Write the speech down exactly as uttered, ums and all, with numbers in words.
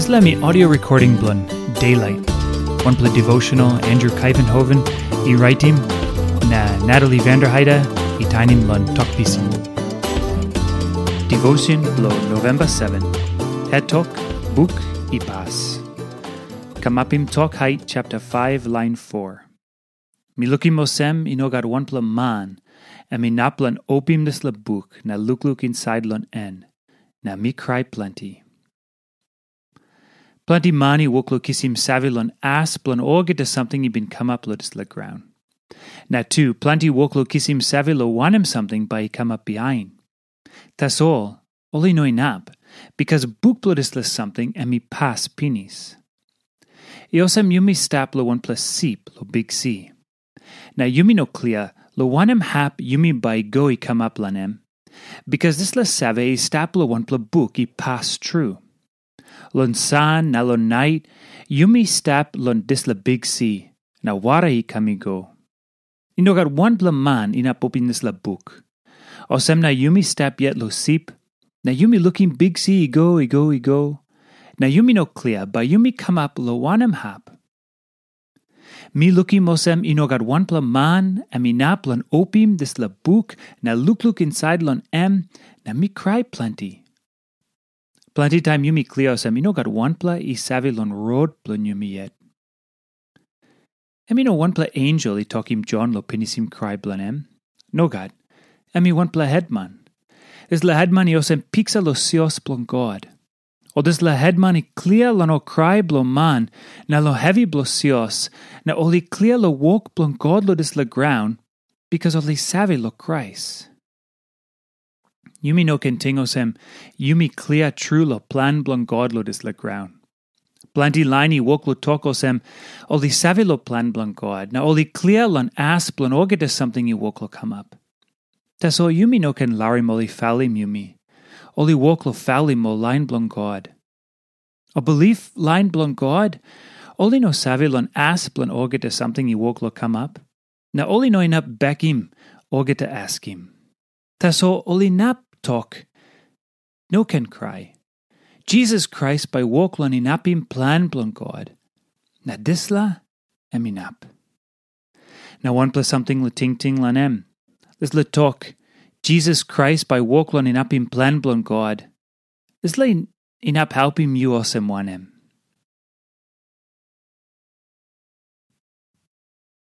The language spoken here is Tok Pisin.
Dispela mi audio recording bilong Daylight, wanpela devotional Andrew Kaivenhoven i raitim, na Natalie Vanderheide i tainim long Tok Pisin. Devotion bilong November seven, Het Tok, Buk i Pas. Kamapim Tok Hait chapter five, line four. Mi lukim olsem i no gat wanpela man em inap long opim dispela buk na lukluk insait long en, na mi krai planti. Planti man i wok long kisim save long as bilong olgeta samting i bin kamap long dispela graun. Na tu, planti wok long kisim save long wanem samting bai i kamap bihain. Tasol ol i no inap, bikas buk bilong dispela samting em i pas pinis. I olsem yumi stap long wanpela sip long biksi. Na yumi no klia long wanem hap yumi bai i go i kamap long em, bikas dispela save i stap long wanpela buk i pas tru. Long san na long nait yumi stap long dispela biksi, na wara i kam i go. I no gat wanpela man inap opim dispela buk. Olsem na yumi stap yet long sip, na yumi lukim biksi i go, i go, i go, na yumi no klia bai yumi kamap long wanem hap. Mi lukim olsem i no gat wanpela man em inap long opim dispela buk na lukluk insait long em, na mi krai planti. Planti taim yumi klia olsem i no gat wanpela i save long rot bilong yumi yet. Em i no wanpela ensel i tokim Jon long pinisim krai bilong em. Nogat. Em i wanpela hetman. Dispela hetman i olsem piksa long sios bilong God. Ol dispela hetman i klia long ol krai bilong man na long hevi bilong sios, na ol i klia long wok bilong God long dispela graun, bikas ol i save long Krais. Yumi no ken ting olsem, yumi klia tru long plan bilong God long dispela graun. Planti lain i wok long tok olsem, ol i save long plan bilong God, na ol i klia long as bilong olgeta samting i wok long kamap. Tasol yumi no ken larim ol i falim yumi. Ol i wok long falim ol lain bilong God. Ol bilip lain bilong God, ol i no save long as bilong olgeta samting i wok long kamap, na ol i no inap bekim olgeta askim. Tasol ol inap tok, "No ken krai. Jisas Krais bai wok long inapim plan bilong God, na dispela em inap." Na wanpela samting long tingting long em. Dispela tok, "Jisas Krais bai wok long inapim plan bilong God," dispela inap helpim yu olsem wanem?